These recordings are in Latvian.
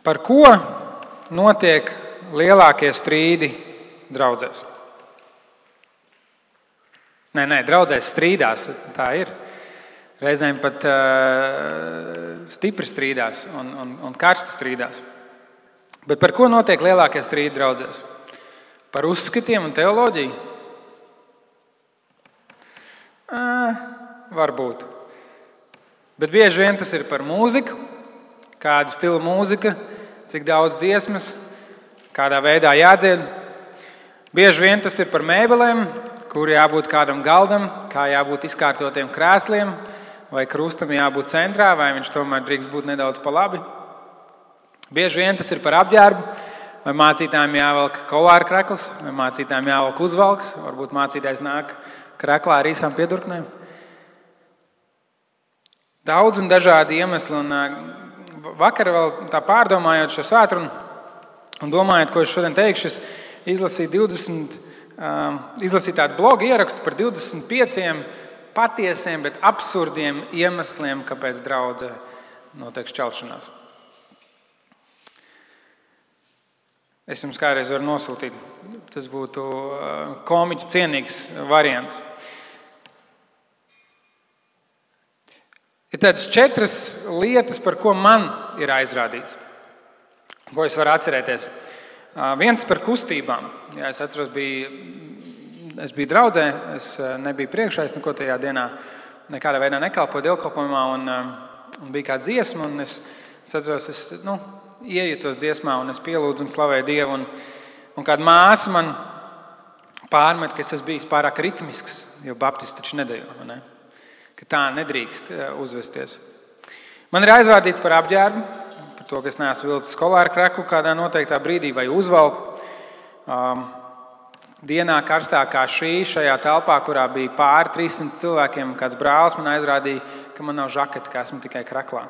Par ko notiek lielākie strīdi draudzēs? Nē, draudzēs strīdās, tā ir. Reizēm pat stipri strīdās un karsti strīdās. Bet par ko notiek lielākie strīdi draudzēs? Par uzskatiem un teoloģiju? Varbūt. Bet bieži vien tas ir par mūziku, kāda stila mūzika, cik daudz dziesmas, kādā veidā jādzied. Bieži vien tas ir par mēbelēm, kur jābūt kādam galdam, kā jābūt izkārtotiem krēsliem, vai krustam jābūt centrā, vai viņš tomēr drīkst būt nedaudz pa labi. Bieži vien tas ir par apģērbu, vai mācītājiem jāvelk kolāra krekls, vai mācītājiem jāvelk uzvalks, varbūt mācītājs nāk kreklā ar īsām piedurknēm. Daudz un dažādi iemesli, un vakar vēl tā pārdomājot šo svētkrunu un domājot, ko es šodien teikšu, es izlasīju tādu blogu ierakstu par 25 patiesiem, bet absurdiem iemesliem, kāpēc draudzē notiek šķelšanās. Es jums kādreiz varu nosūtīt. Tas būtu komiķu cienīgs variants. Ir tādas 4 lietas, par ko man ir aizrādīts, ko es varu atcerēties. Viens par kustībām. Jā, es atceros, es biju draudzē, es nebiju priekšā, es neko tajā dienā nekādā veidā nekalpoju dievkalpojumā, un bija kāda dziesma, un es atceros, iejutos dziesmā, un es pielūdzu un slavēju Dievu, un kāda māsa man pārmet, ka es esmu bijis pārāk ritmisks, jo baptisti taču nedejo, ne? Ka tā nedrīkst uzvesties. Man ir aizvārdīts par apģērbu, par to, ka es neesmu vilcis kolāra kreklu kādā noteiktā brīdī vai uzvalku. Dienā karstākā šajā telpā, kurā bija pāri 300 cilvēkiem, kāds brālis man aizrādīja, ka man nav žaketa, ka esmu tikai kreklā.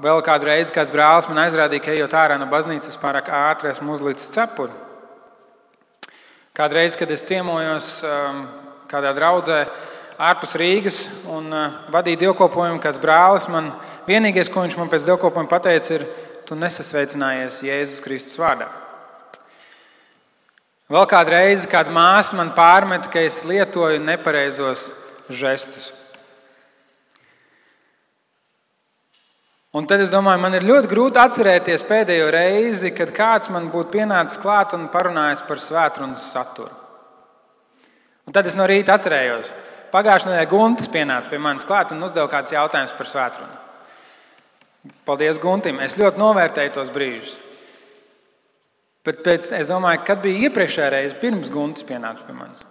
Vēl kādu reizi kāds brālis man aizrādīja, ka ejot ārā no baznīcas pārāk ātri esmu uzlicis cepuri. Kādu reizi, kad es ciemojos kādā draudzē ārpus Rīgas un vadīju dievkalpojumu, kāds brālis man, vienīgais, ko viņš man pēc dievkalpojuma pateica, ir: tu nesasveicinājies Jēzus Kristus vārdā. Vēl kādu reizi kāda māsa man pārmet, ka es lietoju nepareizos žestus. Un tad es domāju, man ir ļoti grūti atcerēties pēdējo reizi, kad kāds man būtu pienācis klāt un parunājis par svētrunas saturu. Un tad es no rīta atcerējos. Pagājušajā nedēļā Guntis pienāca pie manis klāt un uzdeva kādus jautājumus par svētrunu. Paldies Guntim, es ļoti novērtēju tos brīžus. Bet es domāju, kad bija iepriekšējā reize, pirms Guntis pienāca pie manis.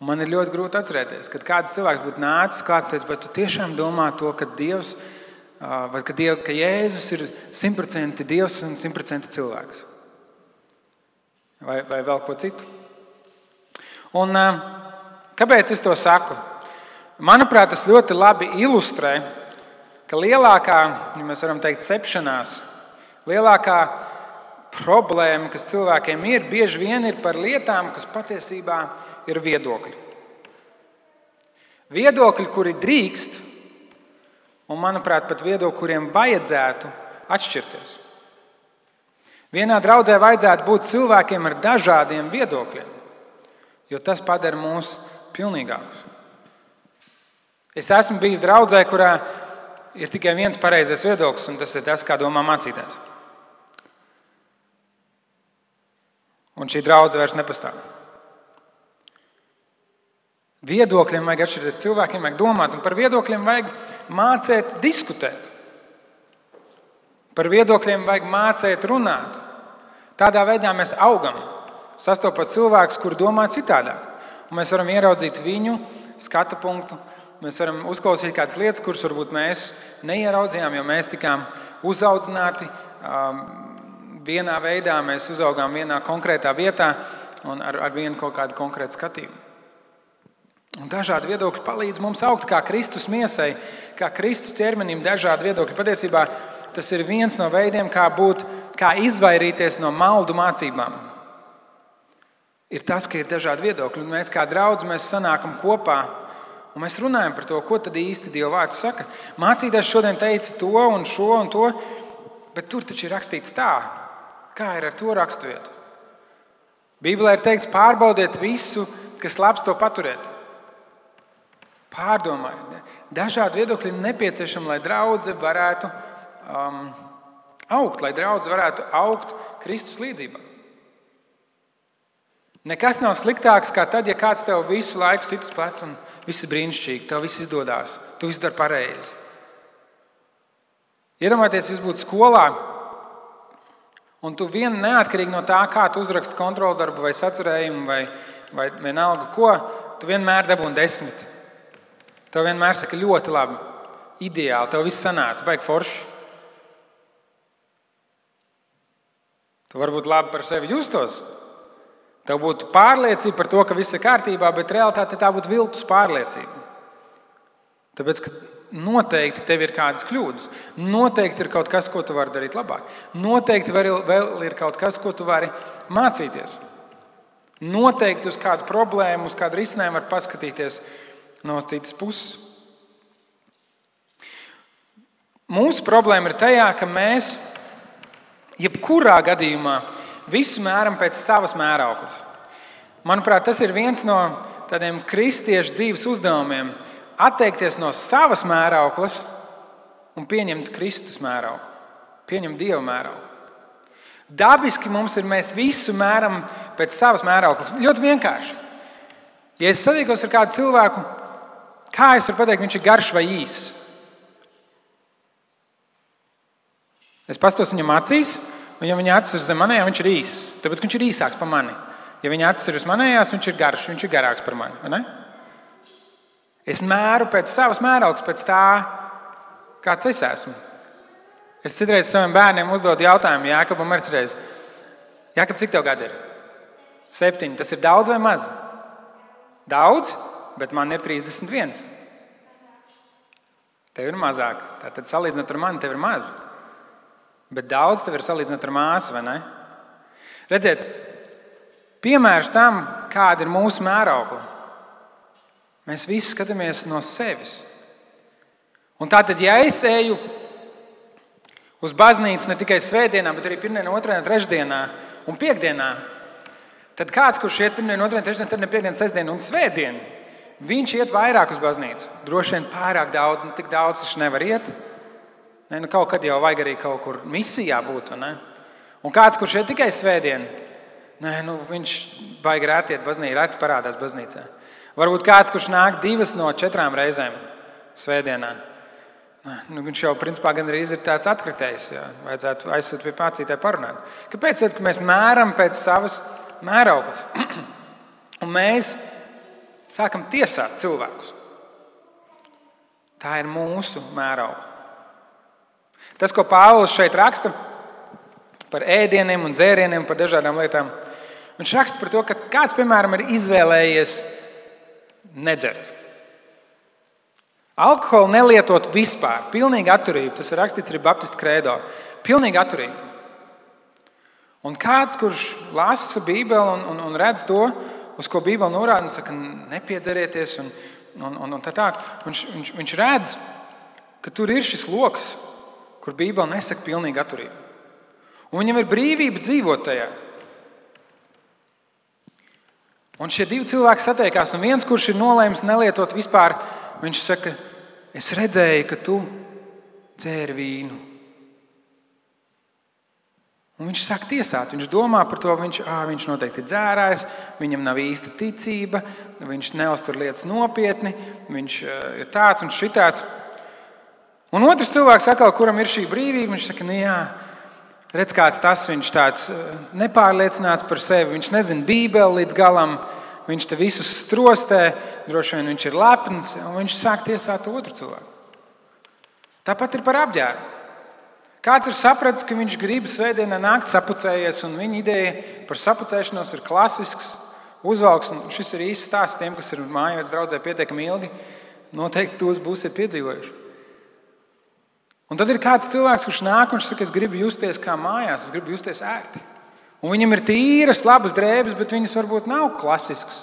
Un man ir ļoti grūti atcerēties, kad kāds cilvēks būtu nācis klāt un teicis, bet tu tiešām domā to, ka Dievs, vai ka Jēzus ir 100% Dievs un 100% cilvēks. Vai vēl ko citu. Un kāpēc es to saku? Manuprāt, tas ļoti labi ilustrē, ka lielākā, ja mēs varam teikt, cepšanās, lielākā problēma, kas cilvēkiem ir, bieži vien ir par lietām, kas patiesībā ir viedokļi. Viedokļi, kuri drīkst, un, manuprāt, pat viedokļi, kuriem vajadzētu atšķirties. Vienā draudzē vajadzētu būt cilvēkiem ar dažādiem viedokļiem, jo tas padara mūs pilnīgākus. Es esmu bijis draudzē, kurā ir tikai viens pareizais viedoklis, un tas ir tas, kā domā mācītājs. Un šī draudze vairs nepastāv. Viedokļiem vajag atšķirties, cilvēkiem vajag domāt, un par viedokļiem vajag mācīt diskutēt. Par viedokļiem vajag mācīt runāt. Tādā veidā mēs augam, sastopot cilvēkus, kuri domā citādāk. Un mēs varam ieraudzīt viņu skatu punktu, mēs varam uzklausīt kādas lietas, kuras varbūt mēs neieraudzījām, jo mēs tikām uzaudzināti vienā veidā, mēs uzaugām vienā konkrētā vietā un ar vienu kaut kādu konkrētu skatījumu. Un dažādi viedokļi palīdz mums augt kā Kristus miesai, kā Kristus ķermenim dažādi viedokļi. Patiesībā tas ir viens no veidiem, kā izvairīties no maldu mācībām. Ir tas, ka ir dažādi viedokļi, un mēs kā draudz, mēs sanākam kopā Un mēs runājam par to, ko tad īsti Dieva vārds saka. Mācītājs šodien teica to un šo un to, bet tur taču ir rakstīts tā. Kā ir ar to raksturvietu? Bībelē ir teikts, pārbaudiet visu, kas labs, to paturiet. Pārdomājiet. Dažādi viedokļi ir nepieciešami, lai draudze varētu augt, lai draudze varētu augt Kristus līdzībā. Nekas nav sliktāks kā tad, ja kāds tev visu laiku sit uz pleca un viss ir brīnišķīgi, tev viss izdodās, tu visu dari pareizi. Iedomājieties, jūs būtu skolā, un tu neatkarīgi no tā, kā tu uzraksti kontroldarbu vai sacerējumu vai vienalga ko, tu vienmēr dabūni 10. Tev vienmēr saka ļoti labi, ideāli, tev viss sanāca, baigi forši. Tu varbūt labi par sevi justos. Tev būtu pārliecība par to, ka viss ir kārtībā, bet realitāte tā būtu viltus pārliecība. Tāpēc, ka noteikti tev ir kādas kļūdas. Noteikti ir kaut kas, ko tu vari darīt labāk. Noteikti vēl ir kaut kas, ko tu vari mācīties. Noteikti uz kādu problēmu, uz kādu risinājumu var paskatīties no citas puses. Mūsu problēma ir tajā, ka mēs jebkurā gadījumā visu mēram pēc savas mērauklas. Manuprāt, tas ir viens no tādiem kristiešu dzīves uzdevumiem – atteikties no savas mērauklas un pieņemt Kristus mērauklu, pieņemt Dieva mērauklu. Dabiski mēs visu mēram pēc savas mērauklas. Ļoti vienkārši. Ja es satiekos ar kādu cilvēku, kā es varu pateikt, viņš ir garš vai īss? Es pastos viņam acīs, un ja viņa acis ir zem manējām, viņš ir īss. Tāpēc, ka viņš ir īsāks par mani. Ja viņa acis ir uz manējās, viņš ir garš, viņš ir garāks par mani. Vai ne? Es mēru pēc savas mērauklas, pēc tā, kāds es esmu. Es citreiz saviem bērniem uzdodu jautājumu, Jākabam arī citreiz. Jākab, cik tev gadi ir? 7. Tas ir daudz vai maz? Daudz, bet man ir 31. Tev ir mazāk. Tātad salīdzinot ar mani, tev ir maz. Bet daudz tev ir salīdzinot ar māsu, vai ne? Redziet, piemērs tam, kāda ir mūsu mēraukla. Mēs visi skatāmies no sevis. Un tātad, ja es eju uz baznīcu ne tikai svētdienā, bet arī pirmdienā, otrdienā, trešdienā un piekdienā, tad kāds, kurš iet pirmdienā, otrdienā, trešdienā, tad ne piekdienā, sestdienā un svētdienā, viņš iet vairāk uz baznīcu. Droši vien pārāk daudz, tik daudz viņš nevar iet. Ne, nu kaut kad jau vajag arī kaut kur misijā būt. Ne? Un kāds, kurš iet tikai svētdienā, viņš baigi rēti iet baznīcā, rēti parādās baznīcā. Varbūt kāds, kurš nāk 2 no 4 reizēm svētdienā. Viņš jau principā gan arī ir tāds atkritējs. Jā. Vajadzētu aizsūt pie mācītāja parunāt. Kāpēc? Tad, ka mēs mēram pēc savas mērauklas. Un mēs sākam tiesāt cilvēkus. Tā ir mūsu mēraukla. Tas, ko Pāvils šeit raksta par ēdieniem un dzērieniem, par dažādām lietām, viņš raksta par to, ka kāds, piemēram, ir izvēlējies nedzert. Alkoholu nelietot vispār. Pilnīgi atturība. Tas ir rakstīts arī Baptistu kredo. Pilnīgi atturība. Un kāds, kurš lasa Bībeli un redz to, uz ko Bībeli norāda, un saka, nepiedzerieties un tā. Viņš redz, ka tur ir šis loks, kur Bībeli nesaka pilnīgi atturība. Un viņam ir brīvība dzīvot tajā. Un šie 2 cilvēki satiekās, un viens, kurš ir nolēmis nelietot vispār, viņš saka, es redzēju, ka tu dzēri vīnu. Un viņš sāk tiesāt, viņš domā par to, viņš noteikti ir dzērājs, viņam nav īsta ticība, viņš neuztur lietas nopietni, viņš ir tāds un šitāds. Un otrs cilvēks, kuram ir šī brīvība, viņš saka, redz, kāds tas, viņš tāds nepārliecināts par sevi, viņš nezina Bībeli līdz galam, viņš te visus strostē, droši vien viņš ir lepns, un viņš sāk tiesāt otru cilvēku. Tāpat ir par apģērbu. Kāds ir sapratis, ka viņš grib svētdienā nākt sapucējies, un viņa ideja par sapucēšanos ir klasisks uzvalks, un šis ir īsts stāsts tiem, kas ir mājās draudzē pietiekami ilgi, noteikti tos būsiet piedzīvojuši. Un tad ir kāds cilvēks, kurš nāk un saka, es gribu justies kā mājās, es gribu justies ērti. Un viņam ir tīras, labas drēbes, bet viņas varbūt nav klasiskas.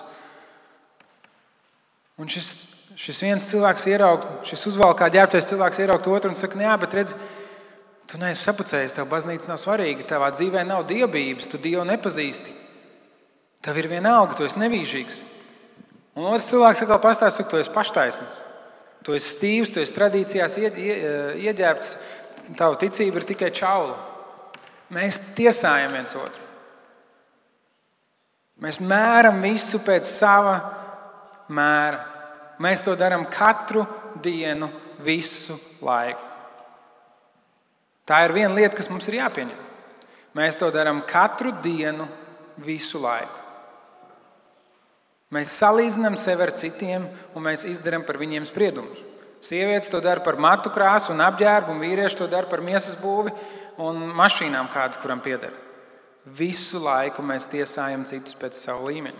Un šis šis viens cilvēks ieraug, šis uzvalkā ģērbtais cilvēks ieraug otru un saka, jā, bet redz, tu neesi sapucējis, tev baznīca nav svarīga, tavā dzīvē nav dievbības, tu Dievu nepazīsti. Tev ir vienalga, tu esi nevīžīgs. Un otrs cilvēks atkal pastāsta, saka, tu esi paštaisns. Tu esi stīvs, tu esi tradīcijās ieģērbts, tava ticība ir tikai čaula. Mēs tiesājam viens otru. Mēs mēram visu pēc sava mēra. Mēs to darām katru dienu, visu laiku. Tā ir viena lieta, kas mums ir jāpieņem. Mēs to darām katru dienu, visu laiku. Mēs salīdzinām sevi ar citiem un mēs izdarām par viņiem spriedumus. Sievietes to dara par matu krāsu un apģērbu, un vīrieši to dara par miesas būvi un mašīnām kādas, kuram pieder. Visu laiku mēs tiesājam citus pēc savu līmeni.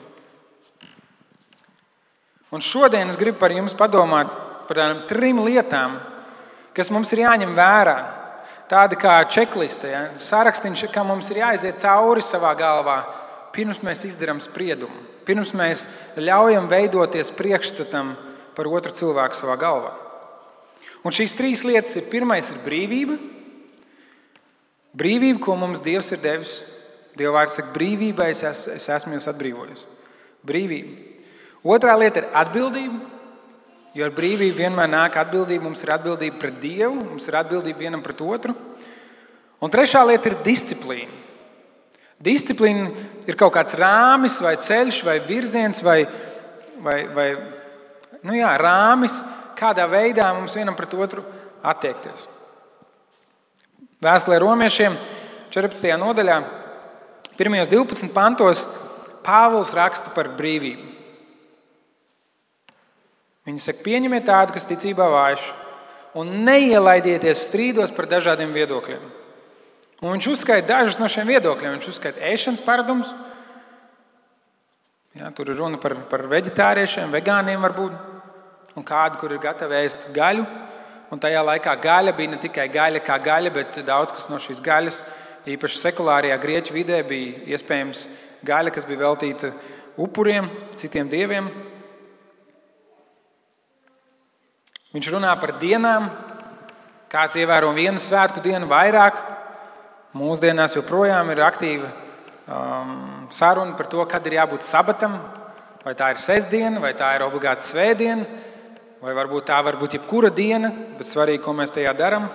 Un šodien es gribu par jums padomāt par tādām 3 lietām, kas mums ir jāņem vērā. Tāda kā čekliste, ja? Sarakstīns, kā mums ir jāiziet cauri savā galvā, pirms mēs izdarām spriedumu. Pirms mēs ļaujam veidoties priekšstatam par otru cilvēku savā galvā. Un šīs 3 lietas ir: pirmais ir brīvība. Brīvība, ko mums Dievs ir devis. Dieva vārds saka, brīvībai es esmu jūs atbrīvojis. Brīvība. Otrā lieta ir atbildība, jo ar brīvību vienmēr nāk atbildība. Mums ir atbildība pret Dievu, mums ir atbildība vienam pret otru. Un trešā lieta ir disciplīna. Disciplīna ir kaut kāds rāmis vai ceļš vai virziens vai rāmis, kādā veidā mums vienam pret otru attiekties. Vēstulē Romiešiem 14. nodaļā, 1. 12 pantos, Pāvils raksta par brīvību. Viņš saka, pieņemiet tādu, kas ticībā vājš, un neielaidieties strīdos par dažādiem viedokļiem. Un viņš uzskaita dažus no šiem viedokļiem. Viņš uzskaita ēšanas paradumus. Ja, tur ir runa par veģetāriešiem, vegāniem varbūt. Un kādu, kur ir gatavi ēst gaļu. Un tajā laikā gaļa bija ne tikai gaļa kā gaļa, bet daudz kas no šīs gaļas, īpaši sekulārajā grieķu vidē, bija iespējams gaļa, kas bija veltīta upuriem, citiem dieviem. Viņš runā par dienām. Kāds ievēro vienu svētku dienu vairāk. Mūsdienās joprojām ir aktīva saruna par to, kad ir jābūt sabatam. Vai tā ir sestdiena, vai tā ir obligāta svētdiena, vai varbūt tā var būt jebkura diena, bet svarīgi, ko mēs tajā darām.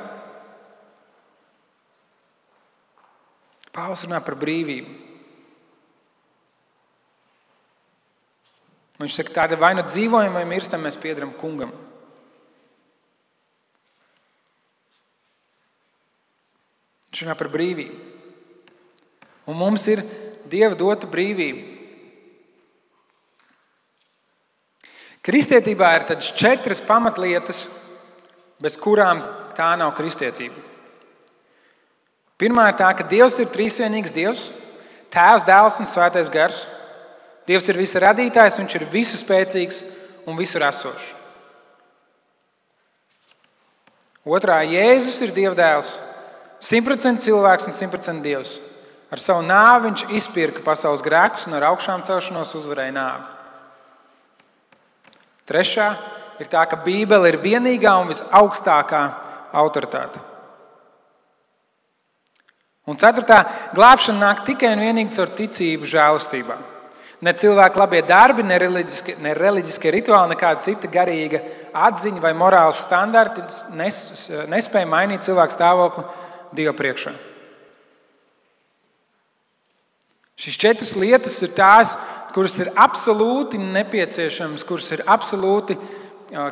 Pāvils runā par brīvību. Viņš saka, tāda vai nu dzīvojam, vai mirstam, mēs piederam kungam. Viņš runā par brīvību. Un mums ir Dieva dota brīvība. Kristietībā ir tādas 4 pamatlietas, bez kurām tā nav kristietība. Pirmā ir tā, ka Dievs ir trīsvienīgs Dievs, Tēvs, Dēls un Svētais Gars. Dievs ir visa radītājs, viņš ir visu spēcīgs un visur esošs. Otrā, Jēzus ir Dieva dēls. 100% cilvēks un 100% Dievs. Ar savu nāvi viņš izpirka pasaules grēkus un ar augšām celšanos uzvarēja nāvi. Trešā ir tā, ka Bībele ir vienīgā un visaugstākā autoritāte. Un ceturtā, glābšana nāk tikai un vienīgi caur ticību žēlastībā. Ne cilvēku labie darbi, ne reliģiskie rituāli, nekāda cita garīga atziņa vai morāls standarti nespēja mainīt cilvēku stāvokli Dieva priekšā. Šīs 4 lietas ir tās, kuras ir absolūti nepieciešamas, kuras ir absolūti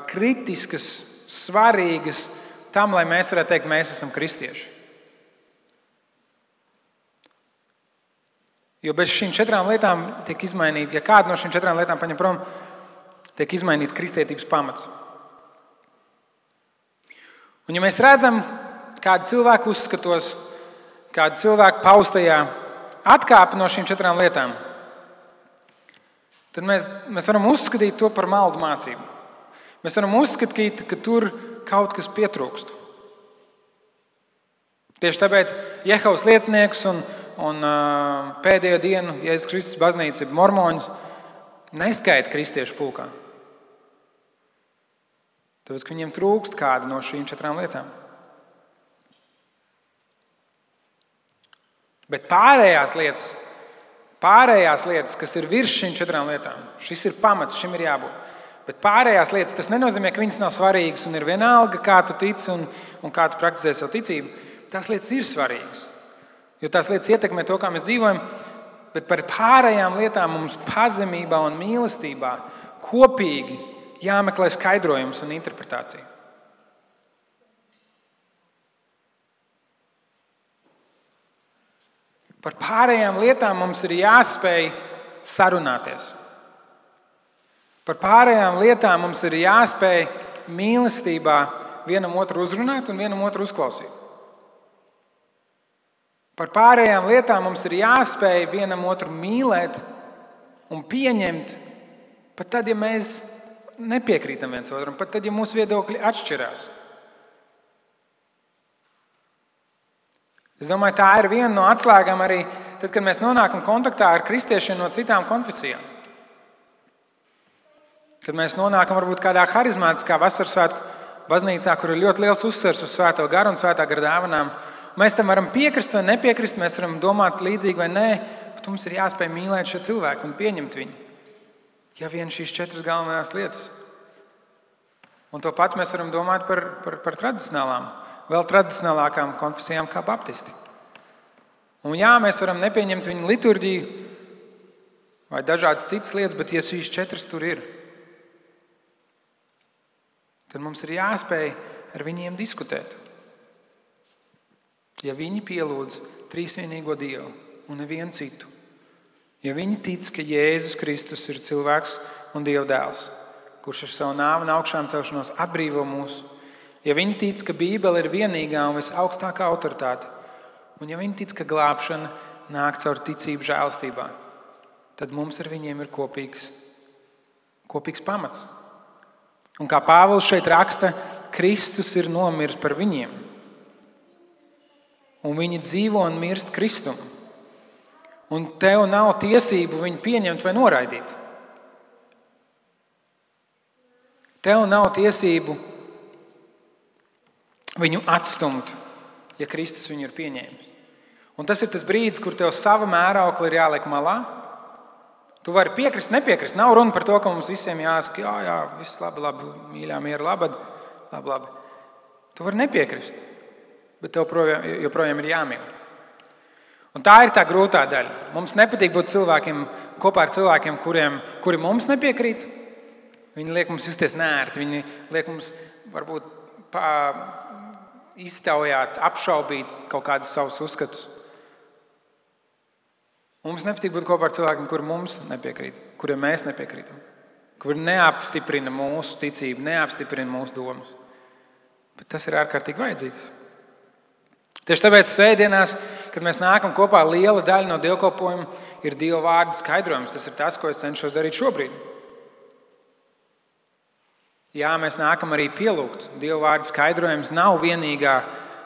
kritiskas, svarīgas tam, lai mēs varētu teikt, mēs esam kristieši. Jo bez šīm 4 lietām tiek izmainīta, ja kāda no šīm 4 lietām paņem prom, tiek izmainīts kristietības pamats. Un ja mēs redzam, kādu cilvēku uzskatos, kādu cilvēku paustajā atkāpi no šīm 4 lietām, tad mēs varam uzskatīt to par maldu mācību. Mēs varam uzskatīt, ka tur kaut kas pietrūkst. Tieši tāpēc Jehovas lieciniekus un pēdējo dienu Jēzus Kristus baznīca, mormoņus, neskaita kristiešu pulkā. Tāpēc, ka viņiem trūkst kāda no šīm 4 lietām. Bet pārējās lietas, kas ir virs šīm 4 lietām, šis ir pamats, šim ir jābūt. Bet pārējās lietas, tas nenozīmē, ka viņas nav svarīgas un ir vienalga, kā tu tici un kā tu praktizē savu ticību. Tās lietas ir svarīgas, jo tās lietas ietekmē to, kā mēs dzīvojam, bet par pārējām lietām mums pazemībā un mīlestībā kopīgi jāmeklē skaidrojums un interpretācija. Par pārējām lietām mums ir jāspēj sarunāties. Par pārējām lietām mums ir jāspēj mīlestībā vienam otru uzrunāt un vienam otru uzklausīt. Par pārējām lietām mums ir jāspēj vienam otru mīlēt un pieņemt, pat tad, ja mēs nepiekrītam viens otram, pat tad, ja mūsu viedokļi atšķirās. Es domāju, tā ir viena no atslēgām arī tad, kad mēs nonākam kontaktā ar kristiešiem no citām konfesijām. Kad mēs nonākam varbūt kādā harizmātiskā vasarsvētku baznīcā, kur ir ļoti liels uzsvers uz Svēto garu un Svētā gara dāvanām. Mēs tam varam piekrist vai nepiekrist, mēs varam domāt līdzīgi vai nē, bet mums ir jāspēj mīlēt šo cilvēku un pieņemt viņu. Ja vien šīs 4 galvenās lietas. Un to pat mēs varam domāt par tradicionālām, vēl tradicionālākām konfesijām kā baptisti. Un jā, mēs varam nepieņemt viņu liturģiju vai dažādas citas lietas, bet ja šīs 4 tur ir, tad mums ir jāspēj ar viņiem diskutēt. Ja viņi pielūdz trīsvienīgo Dievu un nevienu citu, ja viņi tic, ka Jēzus Kristus ir cilvēks un Dieva dēls, kurš ar savu nāvi un augšām celšanos atbrīvo mūs, ja viņi tic, ka Bībele ir vienīgā un visaugstākā autoritāte, un ja viņi tic, ka glābšana nāk caur ticību žēlstībā, tad mums ar viņiem ir kopīgs pamats. Un kā Pāvils šeit raksta, Kristus ir nomiris par viņiem. Un viņi dzīvo un mirst Kristum. Un tev nav tiesību viņu pieņemt vai noraidīt. Tev nav tiesību viņu atstumt, ja Kristus viņu ir pieņēmis. Un tas ir tas brīdis, kur tev sava mēraukla ir jāliek malā. Tu vari piekrist, nepiekrist. Nav runa par to, ka mums visiem jāsaka, jā, viss labi, mīļā, miera, labi. Tu vari nepiekrist, bet tev joprojām ir jāmīl. Un tā ir tā grūtā daļa. Mums nepatīk būt kopā ar cilvēkiem, kuri mums nepiekrīt. Viņi liek mums justies neērti, viņi liek mums varbūt iztaujāt, apšaubīt kaut kādus savus uzskatus. Mums nepatīk būt kopā ar cilvēkiem, kuri mums nepiekrīt, kuriem mēs nepiekrītam, kuri neapstiprina mūsu ticību, neapstiprina mūsu domas. Bet tas ir ārkārtīgi vajadzīgs. Tieši tāpēc svētdienās, kad mēs nākam kopā, liela daļa no dievkalpojuma ir Dieva vārda skaidrojums. Tas ir tas, ko es cenšos darīt šobrīd. Jā, mēs nākam arī pielūgt. Dieva vārda skaidrojums nav vienīgā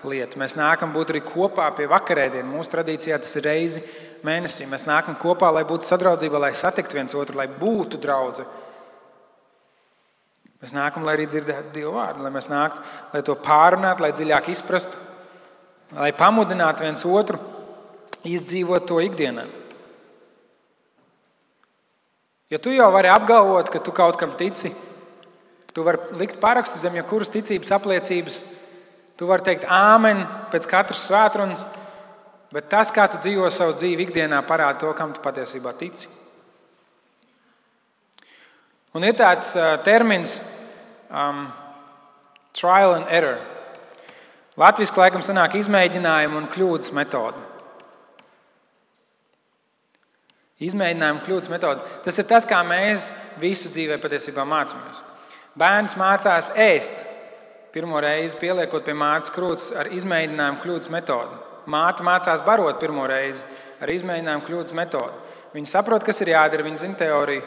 lieta. Mēs nākam būt arī kopā pie vakarēdienu. Mūsu tradīcijā tas ir reizi mēnesī. Mēs nākam kopā, lai būtu sadraudzība, lai satiktu viens otru, lai būtu draudze. Mēs nākam, lai arī dzirdētu Dieva vārdu, lai mēs nāktu, lai to pārunātu, lai dziļāk izprastu, lai pamudinātu viens otru izdzīvot to ikdienā. Ja tu jau vari apgalvot, ka tu kaut kam tici, tu vari likt parakstu zem jebkuras ticības apliecības, tu vari teikt āmen pēc katras svētrunas, bet tas, kā tu dzīvo savu dzīvi ikdienā, parāda to, kam tu patiesībā tici. Un ir tāds termins trial and error. Latviski laikam sanāk izmēģinājumu un kļūdas metode. Izmēģinājumu kļūdas metode. Tas ir tas, kā mēs visu dzīvē patiesībā mācāmies. Bērns mācās ēst. Pirmo reizi pieliekot pie mātes krūts ar izmēģinājumu kļūdas metodi. Māte mācās barot pirmo reizi ar izmēģinājumu kļūdas metodi. Viņa saprot, kas ir jādara, viņa zina teoriju,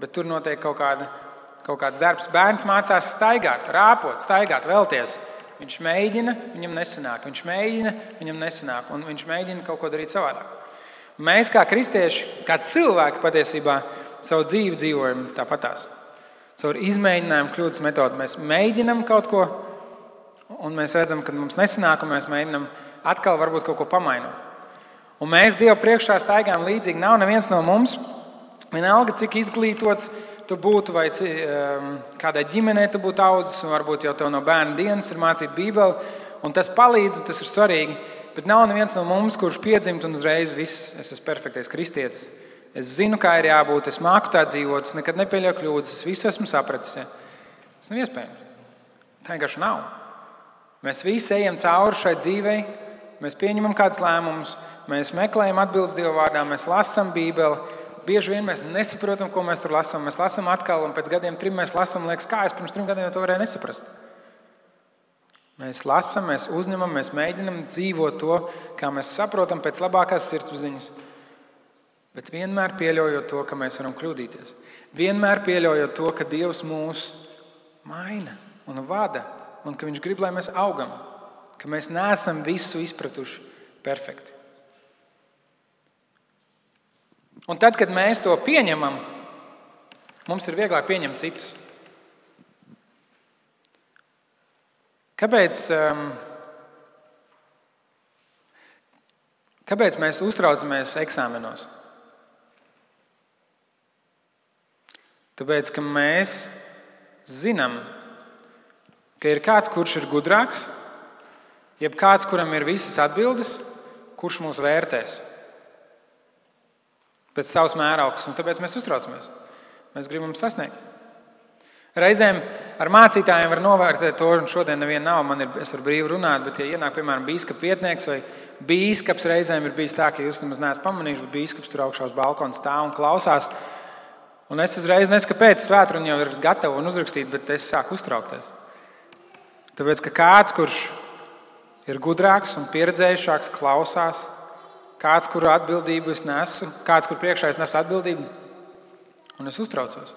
bet tur notiek kaut kāds darbs. Bērns mācās staigāt, rāpot, staigāt, vēlties. Viņš mēģina, viņam nesanāk. Viņš mēģina, viņam nesanāk. Un viņš mēģina kaut ko darīt savādāk. Mēs kā kristieši, kā cilvēki patiesībā savu dzīvi dzīvojam tāpatās. caur izmēģinājumu kļūdas metodu. Mēs mēģinam kaut ko, un mēs redzam, ka mums nesanāk, un mēs mēģinam atkal varbūt kaut ko pamainot. Un mēs Dievu priekšā staigājam līdzīgi. Nav neviens no mums, vienalga, cik izglītots tu būtu, vai kādai ģimenei tu būtu audzis, un varbūt jau tev no bērna dienas ir mācīta Bībele, un tas palīdz, un tas ir svarīgi. Bet nav neviens no mums, kurš piedzimt un uzreiz viss, es esmu perfektais kristietis. Es zinu, kā ir jābūt, es māku tā dzīvot, es nekad nepieļauju kļūdas, es visu esmu sapratis. Ja? Tas nav iespējams. Tā vienkārši nav. Mēs visi ejam cauri šai dzīvei, mēs pieņemam kādus lēmumus, mēs meklējam atbildes Dieva vārdā, mēs lasām Bībeli. Bieži vien mēs nesaprotam, ko mēs tur lasām. Mēs lasām atkal, un pēc gadiem 3 mēs lasām, liekas, kā es pirms 3 gadiem to varēju nesaprast. Mēs lasām, mēs uzņemam, mēs mēģinam dzīvot to, kā mēs saprotam pēc labākās sirdsapziņas. Bet vienmēr pieļaujot to, ka mēs varam kļūdīties. Vienmēr pieļaujot to, ka Dievs mūs maina un vada, un ka Viņš grib, lai mēs augam, ka mēs neesam visu izpratuši perfekti. Un tad, kad mēs to pieņemam, mums ir vieglāk pieņemt citus. Kāpēc mēs uztraucamies eksāmenos? Tāpēc, ka mēs zinām, ka ir kāds, kurš ir gudrāks, jeb kāds, kuram ir visas atbildes, kurš mūs vērtēs pēc savas mēraukas, un tāpēc mēs uztraucamies. Mēs gribam sasniegt. Reizēm ar mācītājiem var novērtēt to, un šodien neviena nav, es varu brīvi runāt, bet ja ienāk, piemēram, bīskapa vietnieks vai bīskaps, reizēm ir bijis tā, ka jūs nemaz neesat pamanījuši, bet bīskaps tur augšā uz balkona stāv un klausās. Un es uzreiz nesaku, kāpēc svētruna jau ir gatava un uzrakstīta, bet es sāku uztraukties. Tāpēc, ka kāds, kurš ir gudrāks un pieredzējušāks, klausās, kāds, kuru atbildību es nesu, kāds, kur priekšā es nesu atbildību, un es uztraucos.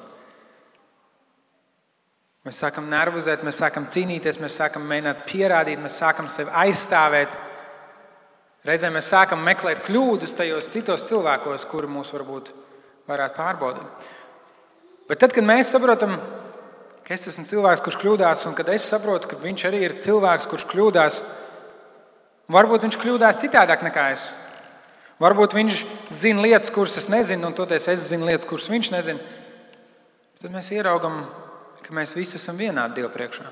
Mēs sākam nervozēt, mēs sākam cīnīties, mēs sākam mēģināt pierādīt, mēs sākam sevi aizstāvēt. Reizēm mēs sākam meklēt kļūdas tajos citos cilvēkos, kuri mūs varbūt varētu pārbaudīt. Bet tad, kad mēs saprotam, ka es esmu cilvēks, kurš kļūdās, un kad es saprotu, ka viņš arī ir cilvēks, kurš kļūdās, varbūt viņš kļūdās citādāk nekā es. Varbūt viņš zina lietas, kuras es nezinu, un toties es zinu lietas, kuras viņš nezina. Tad mēs ieraugam, ka mēs visi esam vienādi Dieva priekšā.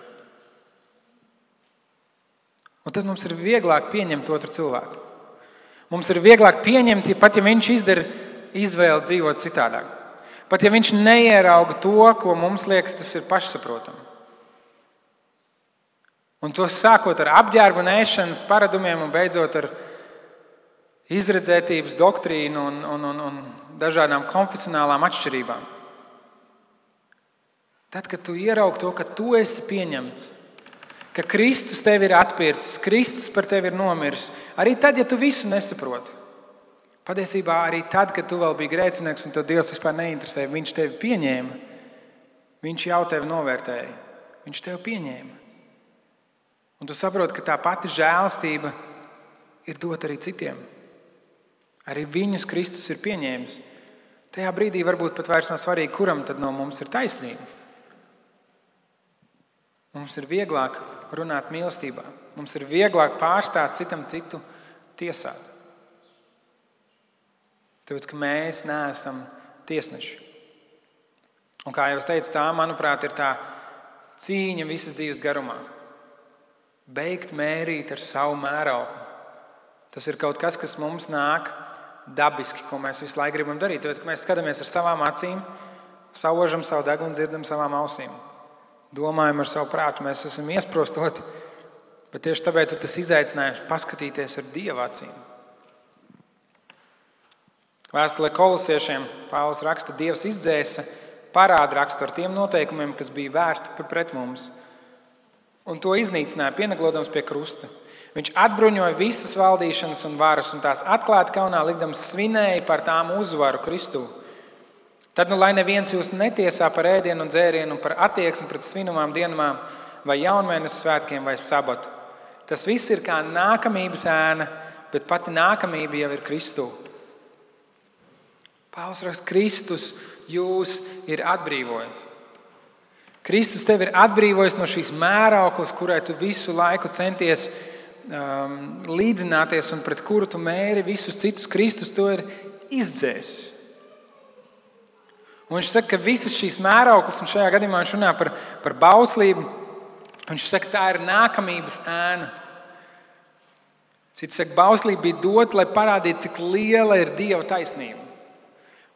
Un tad mums ir vieglāk pieņemt otru cilvēku. Mums ir vieglāk pieņemt, pat ja viņš izdara izvēli dzīvot citādāk. Pat ja viņš neierauga to, ko mums liekas, tas ir pašsaprotami. Un to sākot ar apģērbu nēšanas paradumiem un beidzot ar izredzētības doktrīnu un dažādām konfesionālām atšķirībām. Tad, kad tu ieraugi to, ka tu esi pieņemts, ka Kristus tevi ir atpircis, Kristus par tevi ir nomiris, arī tad, ja tu visu nesaproti, patiesībā arī tad, kad tu vēl biji grēcinieks un tev Dievs vispār neinteresēja, Viņš tevi pieņēma, Viņš jau tevi novērtēja, Viņš tevi pieņēma. Un tu saproti, ka tā pati žēlastība ir dota arī citiem. Arī viņus Kristus ir pieņēmis. Tajā brīdī varbūt pat vairs nav svarīgi, kuram tad no mums ir taisnība. Mums ir vieglāk runāt mīlestībā. Mums ir vieglāk pārstāt citam citu tiesāt. Tāpēc, ka mēs neesam tiesneši. Un kā jau es teicu, tā, manuprāt, ir tā cīņa visas dzīves garumā. Beigt mērīt ar savu mērauklu. Tas ir kaut kas, kas mums nāk dabiski, ko mēs visu laiku gribam darīt. Tāpēc, ka mēs skatāmies ar savām acīm, saužam savu degunu, dzirdam savām ausīm. Domājam ar savu prātu, mēs esam iesprostoti, bet tieši tāpēc ir tas izaicinājums paskatīties ar Dieva acīm. Vēstulē Kolosiešiem Pāvils raksta, Dievs izdzēsa parādu rakstu ar tiem noteikumiem, kas bija vērsti pret mums, un to iznīcināja, pieneglodams pie krusta. Viņš atbruņoja visas valdīšanas un varas, un tās atklāti kaunā likdams svinēja par tām uzvaru Kristū. Tad, lai neviens jūs netiesā par ēdienu un dzērienu, par attieksmi pret svinamām dienām, vai jaunmēnes svētkiem, vai sabatu. Tas viss ir kā nākamības ēna, bet pati nākamība jau ir Kristū. Pāvils raksta, Kristus jūs ir atbrīvojis. Kristus tevi ir atbrīvojis no šīs mērauklas, kurai tu visu laiku centies līdzināties un pret kuru tu mēri visus citus. Kristus to ir izdzēsis. Un viņš saka, ka visas šīs mērauklas, un šajā gadījumā viņš runā par bauslību, viņš saka, tā ir nākamības ēna. Cits saka, bauslība bija dota, lai parādītu, cik liela ir Dieva taisnība.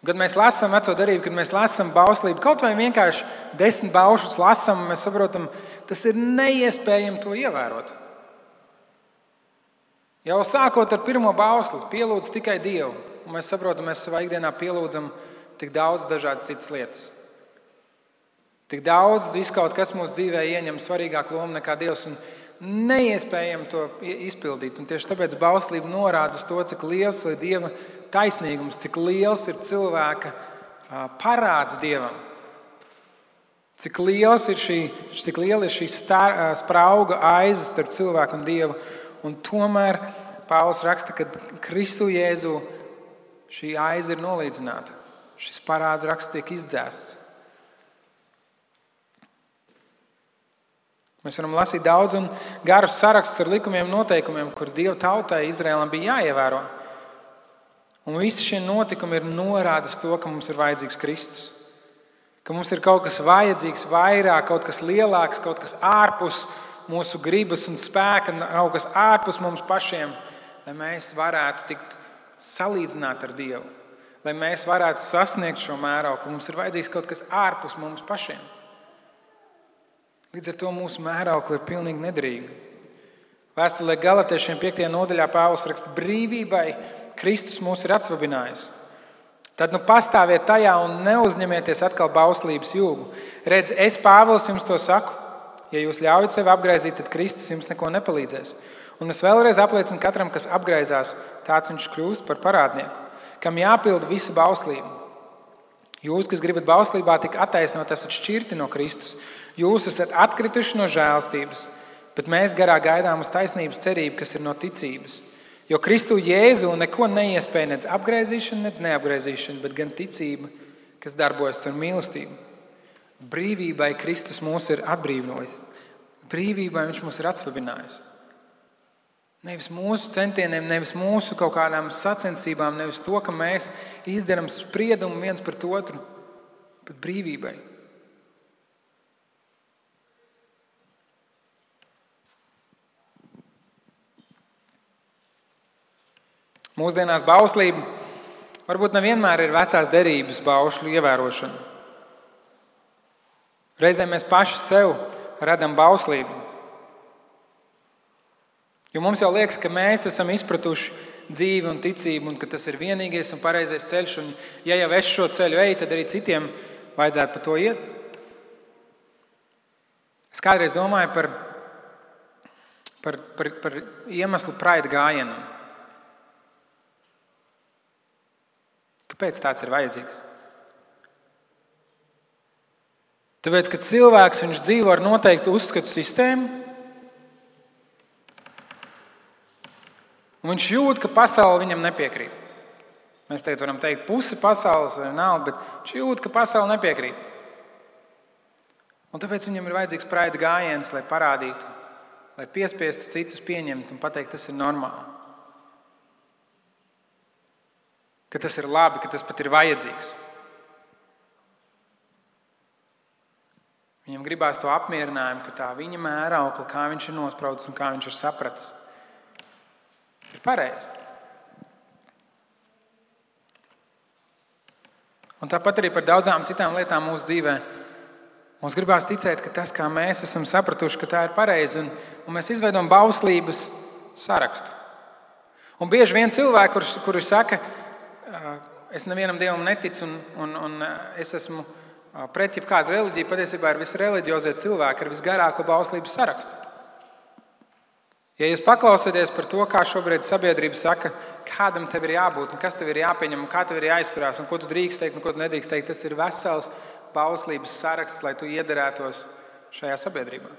Un, kad mēs lasām Veco darību, kad mēs lasām bauslību, kaut vai vienkārši 10 baušus lasām, mēs saprotam, tas ir neiespējami to ievērot. Jau sākot ar pirmo bausli, pielūdz tikai Dievu. Un mēs saprotam, mēs savā ikdienā pielūdzam tik daudz dažādas citas lietas. Tik daudz viskaut kas mūsu dzīvē ieņem svarīgāku lomu nekā Dievs. Un neiespējami to izpildīt. Un tieši tāpēc bauslība norāda uz to, cik liels ir Dieva taisnīgums, cik liels ir cilvēka parāds Dievam. Cik liela ir šī sprauga aiza starp cilvēku un Dievu. Un tomēr Pāvils raksta, ka Kristu Jēzu šī aiza ir nolīdzināta. Šis parādu raksts tiek izdzēsts. Mēs varam lasīt daudz un garus sarakstus ar likumiem un noteikumiem, kur Dieva tautai Izraēlam bija jāievēro. Un visi šie notikumi ir norāda uz to, ka mums ir vajadzīgs Kristus. Ka mums ir kaut kas vajadzīgs vairāk, kaut kas lielāks, kaut kas ārpus mūsu gribas un spēka, kaut kas ārpus mums pašiem, lai mēs varētu tikt salīdzināt ar Dievu. Lai mēs varētu sasniegt šo mērauklu, mums ir vajadzīgs kaut kas ārpus mums pašiem. Līdz ar to mūsu mēraukli ir pilnīgi nederīga. Vēstulē Galatiešiem 5. nodaļā Pāvils raksta, brīvībai Kristus mūs ir atsvabinājis. Tad pastāviet tajā un neuzņemieties atkal bauslības jūgu. Redz, es Pāvils jums to saku, ja jūs ļaujat sevi apgraizīt, tad Kristus jums neko nepalīdzēs. Un es vēlreiz apliecinu katram, kas apgraizās, tāds viņš kļūst par parādnieku, kam jāpilda visa bauslība. Jūs, kas gribat bauslībā tik attaisnot, esat šķirti no Kristus. Jūs esat atkrituši no žēlstības, bet mēs garā gaidām uz taisnības cerību, kas ir no ticības. Jo Kristu Jēzu neko neiespēja nec apgraizīšana, nec neapgraizīšana, bet gan ticība, kas darbojas ar mīlestību. Brīvībai Kristus mūs ir atbrīvojis. Brīvībai viņš mūs ir atsvabinājis. Nevis mūsu centieniem, nevis mūsu kaut kādām sacensībām, nevis to, ka mēs izdarām spriedumu viens pret otru, bet brīvībai. Mūsdienās bauslība varbūt nevienmēr ir vecās derības baušļu ievērošana. Reizēm mēs paši sev radam bauslību. Jo mums jau liekas, ka mēs esam izpratuši dzīvi un ticību, un ka tas ir vienīgais un pareizais ceļš. Un ja jau es šo ceļu eju, tad arī citiem vajadzētu pa to iet. Es kādreiz domāju par iemeslu Pride gājienam. Kāpēc tāds ir vajadzīgs? Tāpēc, ka cilvēks viņš dzīvo ar noteiktu uzskatu sistēmu, un viņš jūt, ka pasaule viņam nepiekrīt. Mēs tagad varam teikt pusi pasaules vai nav, bet viņš jūt, ka pasaule nepiekrīt. Un tāpēc viņam ir vajadzīgs Pride gājiens, lai parādītu, lai piespiestu citus pieņemt un pateikt, tas ir normāli. Ka tas ir labi, ka tas pat ir vajadzīgs. Viņam gribās to apmierinājumu, ka tā viņa mēraukla, kā viņš ir nospraudis un kā viņš ir sapratis, ir pareizi. Un tāpat arī par daudzām citām lietām mūsu dzīvē. Mums gribās ticēt, ka tas, kā mēs esam sapratuši, ka tā ir pareizi, un mēs izveidojam bauslības sarakstu. Un bieži vien cilvēki, kuri saka, es nevienam dievam neticu un es esmu pret jebkādu reliģiju, patiesībā ir visreliģiozie cilvēki ar visgarāko bauslības sarakstu. Ja jūs paklausieties par to, kā šobrīd sabiedrība saka, kādam tev ir jābūt, un kas tev ir jāpieņem, un kā tev ir jāizturās, un ko tu drīkst teikt, un ko tu nedrīkst teikt, tas ir vesels bauslības saraksts, lai tu iederētos šajā sabiedrībā.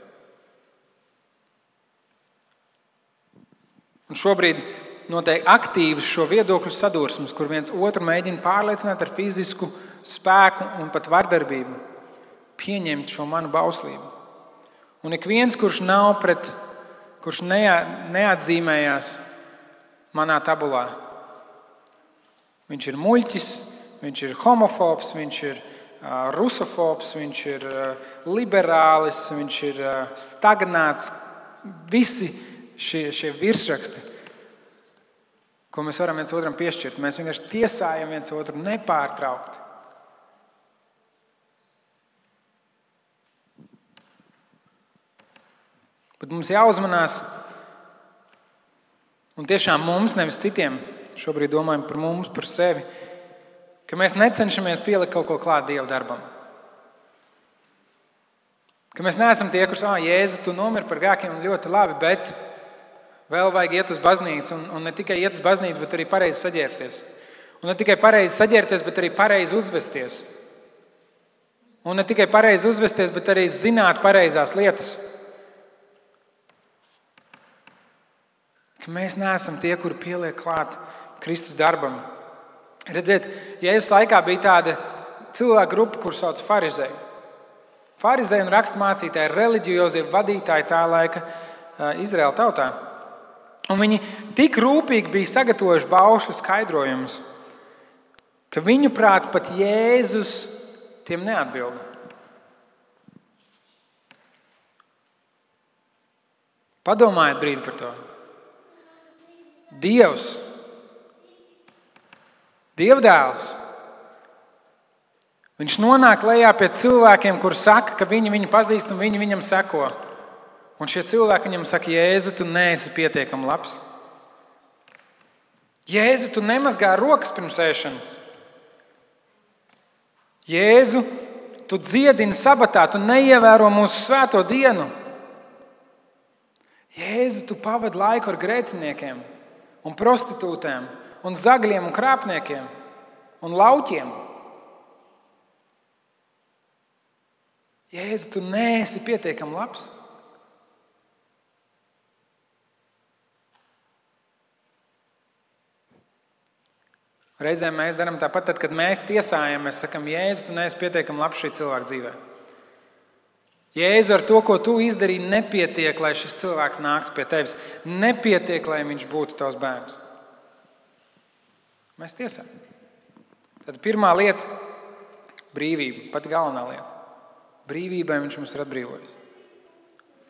Un šobrīd notiek aktīvas šo viedokļu sadursmes, kur viens otru mēģina pārliecināt ar fizisku spēku un pat vardarbību. pieņemt šo manu bauslību. Un ik viens, kurš neatzīmējās manā tabulā, viņš ir muļķis, viņš ir homofobs, viņš ir rusofobs, viņš ir liberālis, viņš ir stagnāts. Visi šie virsraksti, ko mēs varam viens otram piešķirt, mēs vienkārši tiesājam viens otru nepārtraukti. Bet mums jāuzmanās, un tiešām mums, nevis citiem, šobrīd domājam par mums, par sevi, ka mēs necenšamies pielikt kaut ko klāt Dieva darbam. Ka mēs neesam tie, kurus, Jēzu, tu nomiri par grēkiem, ļoti labi, bet vēl vajag iet uz baznīcu, un ne tikai iet uz baznīcu, bet arī pareizi saģērbties. Un ne tikai pareizi saģērbties, bet arī pareizi uzvesties. Un ne tikai pareizi uzvesties, bet arī zināt pareizās lietas. Ka mēs neesam tie, kuri pieliek klāt Kristus darbam. Redziet, Jēzus laikā bija tāda cilvēku grupa, kur sauc farizēji. Farizēji un raksturmācītāji, reliģiozie vadītāji tā laika Izraēla tautā. Un viņi tik rūpīgi bija sagatavojuši baušļu skaidrojumus, ka viņu prāt pat Jēzus tiem neatbilda. Padomājiet brīdi par to. Dievs, Dievdēls, viņš nonāk lejā pie cilvēkiem, kuri saka, ka viņi viņu pazīst un viņi viņam seko. Un šie cilvēki viņam saka, Jēzu, tu neesi pietiekami labs. Jēzu, tu nemazgā rokas pirms ēšanas. Jēzu, tu dziedini sabatā, tu neievēro mūsu svēto dienu. Jēzu, tu pavadi laiku ar grēciniekiem un prostitūtēm un zagļiem un krāpniekiem un lauķiem. Jēzu, tu neesi pietiekami labs. Reizēm mēs darām tāpat, tad, kad mēs tiesājam, mēs sakam, Jēzu, tu neesi pietiekami labs šī cilvēka dzīvē. Jēzu, ar to, ko tu izdarīji, nepietiek, lai šis cilvēks nāktu pie tevis. Nepietiek, lai viņš būtu tavs bērns. Mēs tiesājam. Tad pirmā lieta – brīvība, pati galvenā lieta. Brīvībai viņš mums ir atbrīvojis.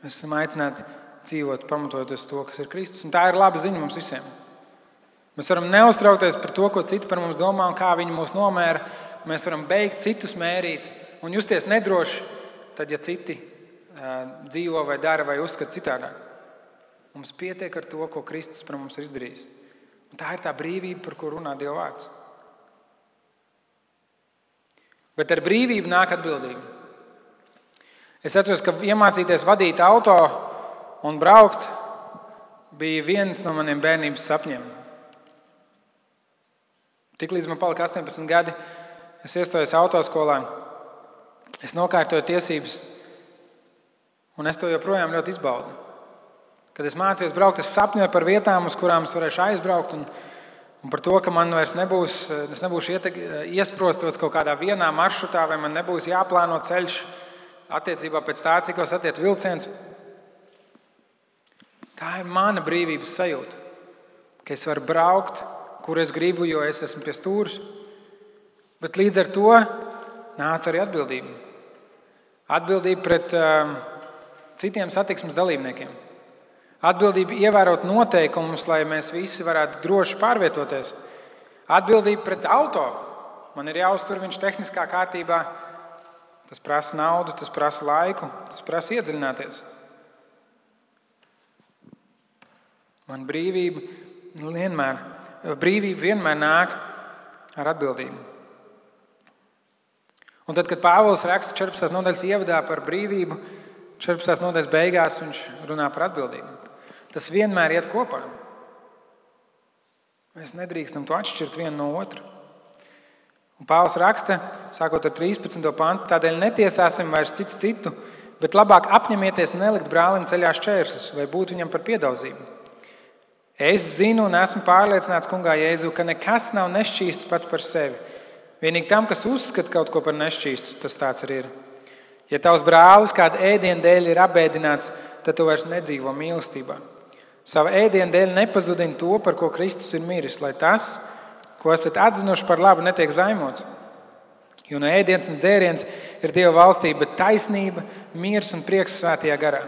Mēs esam aicināti dzīvot, pamatojoties to, kas ir Kristus. Un tā ir laba ziņa mums visiem. Mēs varam neuztraukties par to, ko citi par mums domā un kā viņi mūs nomēra. Mēs varam beigt citus mērīt un justies nedroši, tad, ja citi dzīvo vai dara vai uzskata citādāk. Mums pietiek ar to, ko Kristus par mums ir izdarījis. Un tā ir tā brīvība, par ko runā Dieva vārds. Bet ar brīvību nāk atbildība. Es atceros, ka iemācīties vadīt auto un braukt bija viens no maniem bērnības sapņiem. Tiklīdz man palika 18 gadi, es iestājos autoskolā, es nokārtoju tiesības, un es to joprojām ļoti izbaudu. Kad es mācījos braukt, es sapņoju par vietām, uz kurām es varēšu aizbraukt, un par to, ka man vairs nebūšu iesprostots kaut kādā vienā maršrutā, vai man nebūs jāplāno ceļš attiecībā pēc tā, cikos attiec vilciens. Tā ir mana brīvības sajūta, ka es varu braukt, kur es gribu, jo es esmu pie stūres. Bet līdz ar to nāca arī atbildība. Atbildība pret citiem satiksmes dalībniekiem. Atbildība ievērot noteikumus, lai mēs visi varētu droši pārvietoties. Atbildība pret auto. Man ir jāuztur viņš tehniskā kārtībā. Tas prasa naudu, tas prasa laiku, tas prasa iedziļināties. Man brīvība vienmēr nāk ar atbildību. Un tad, kad Pāvils raksta 14. nodaļas ievadā par brīvību, 14. nodaļas beigās viņš runā par atbildību. Tas vienmēr iet kopā. Mēs nedrīkstam to atšķirt vienu no otra. Un Pāvils raksta, sākot ar 13. pantu, tādēļ netiesāsim vairs cits citu, bet labāk apņemieties nelikt brālim ceļā šķēršļus vai būt viņam par piedauzību. Es zinu un esmu pārliecināts kungā Jēzu, ka nekas nav nešķīsts pats par sevi. Vienīgi tam, kas uzskata kaut ko par nešķīstu, tas tāds arī ir. Ja tavs brālis kāda ēdiena dēļ ir apbēdināts, tad tu vairs nedzīvo mīlestībā. Sava ēdiena dēļ nepazudini to, par ko Kristus ir miris, lai tas, ko esat atzinuši par labu, netiek zaimots. Jo ne ēdiens, ne dzēriens ir Dieva valstība, bet taisnība, miers un prieks svētajā garā.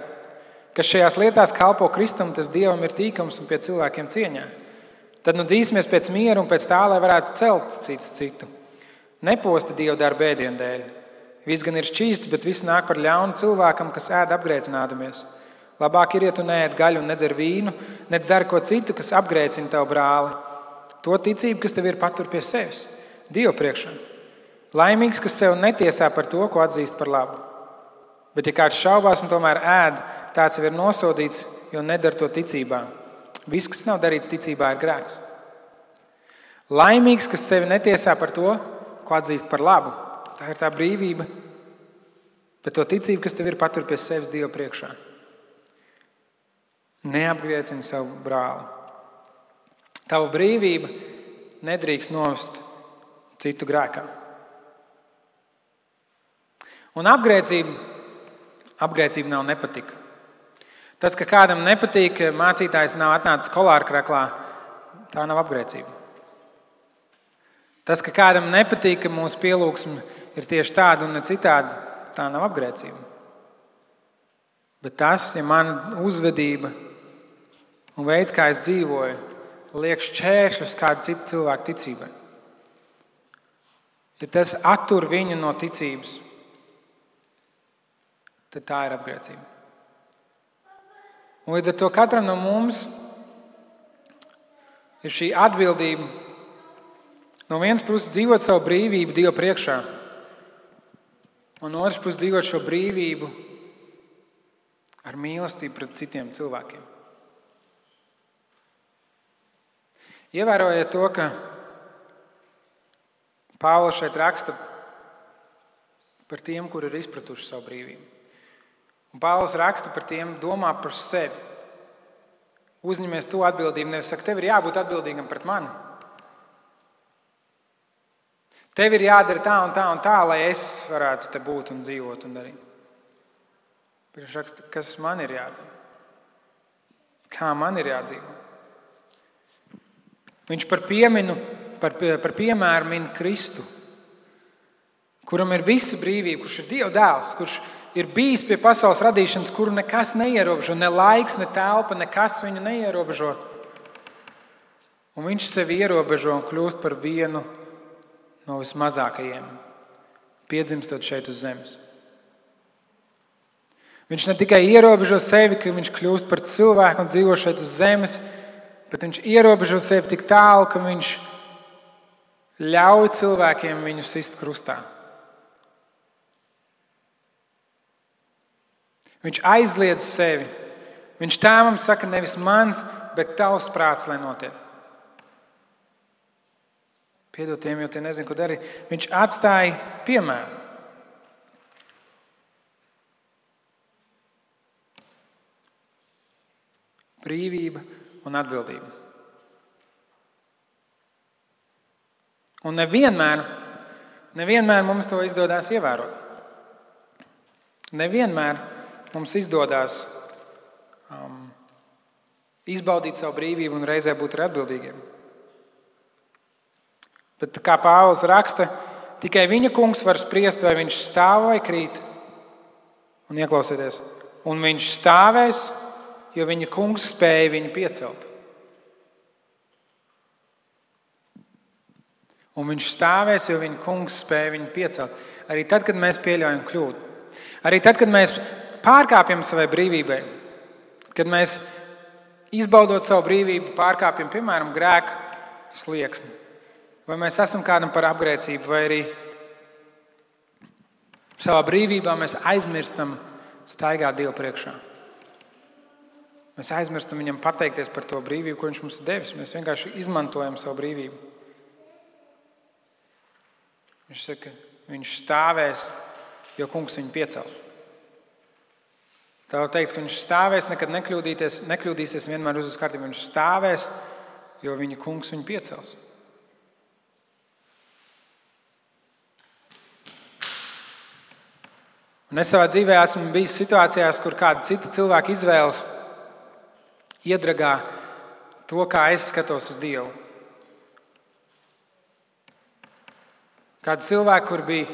Kas šajās lietās kalpo Kristum, tas Dievam ir tīkams un pie cilvēkiem cieņā. Tad nu dzīsimies pēc miera un pēc tā, lai varētu celt cits citu. Neposti Dieva darba ēdienu dēļ. Viss gan ir šķīsts, bet viss nāk par ļaunu cilvēkam, kas ēd apgrēcinādamies. Labāk ir, ja tu neēd gaļu un nedzer vīnu, nec dari ko citu, kas apgrēcina tavu brāli. To ticību, kas tev ir, patur pie sevis, Dievu priekšā. Laimīgs, kas sev netiesā par to, ko atzīst par labu. Bet ja kāds šaubās un tomēr ēd, tāds jau ir nosodīts, jo nedara to ticībā. Viss, kas nav darīts ticībā, ir grēks. Laimīgs, kas sevi netiesā par to, ko atzīst par labu. Tā ir tā brīvība, bet to ticību, kas tev ir, patur pie sevis Dievu priekšā. Neapgriecini savu brāli. Tava brīvība nedrīkst novest citu grēkā. Un apgrēcība nav nepatika. Tas, ka kādam nepatīk, ka mācītājs nav atnācis kolārkraklā, tā nav apgrēcība. Tas, ka kādam nepatīk, ka mūsu pielūgsme ir tieši tāda un ne citāda, tā nav apgrēcība. Bet tas, ja mana uzvedība un veids, kā es dzīvoju, liek šķēršļus kādu citu cilvēku ticībai. Ja tas attur viņu no ticības, tad tā ir apgrēcība. Un līdz ar to katram no mums ir šī atbildība no vienas puses dzīvot savu brīvību Dieva priekšā, un no otras puses dzīvot šo brīvību ar mīlestību pret citiem cilvēkiem. Ievērojiet to, ka Pāvils šeit raksta par tiem, kuri ir izpratuši savu brīvību. Un Pāvils raksta par tiem, domā par sevi. Uzņemies to atbildību, nevis saka, tev ir jābūt atbildīgam pret mani. Tev ir jādara tā un tā un tā, lai es varētu te būt un dzīvot un darīt. Bet viņš raksta, kas man ir jādara? Kā man ir jādzīvo? Viņš par piemēru min Kristu, kuram ir visa brīvība, kurš ir Dieva dēls, kurš ir bijis pie pasaules radīšanas, kuru nekas neierobežo, ne laiks, ne telpa, nekas viņu neierobežo. Un viņš sevi ierobežo un kļūst par vienu no vismazākajiem, piedzimstot šeit uz zemes. Viņš ne tikai ierobežo sevi, ka viņš kļūst par cilvēku un dzīvo šeit uz zemes, bet viņš ierobežo sevi tik tālu, ka viņš ļauj cilvēkiem viņu sist krustā. Viņš aizliedz sevi. Viņš tēvam saka, nevis mans, bet tavs prāts, lai notiek. Piedod tiem, jo tie nezinu, ko darīt. Viņš atstāja piemēru. Brīvība un atbildība. Un nevienmēr mums to izdodas ievērot. Nevienmēr mums izdodas izbaudīt savu brīvību un reizē būt atbildīgiem. Bet kā Pāvils raksta, tikai viņa kungs var spriest, vai viņš stāv vai krīt. Un ieklausieties, un viņš stāvēs, jo viņa kungs spēja viņu piecelt. Un viņš stāvēs, jo viņa kungs spēja viņu piecelt. Arī tad, kad mēs pieļaujam kļūdu. Arī tad, kad mēs pārkāpjam savai brīvībai. Kad mēs, izbaudot savu brīvību, pārkāpjam, piemēram, grēka slieksni. Vai mēs esam kādam par apgrēcību, vai arī savā brīvībā mēs aizmirstam staigāt Dievu priekšā. Mēs aizmirstam viņam pateikties par to brīvību, ko viņš mums ir devis. Mēs vienkārši izmantojam savu brīvību. Viņš saka, viņš stāvēs, jo kungs viņu piecels. Tā var teikt, ka viņš stāvēs, nekad nekļūdīsies, vienmēr uz kārtību. Viņš stāvēs, jo viņa kungs viņu piecels. Un es savā dzīvē esmu bijis situācijās, kur kāda cita cilvēka izvēles iedragā to, kā es skatos uz Dievu. Kādi cilvēki, kur bija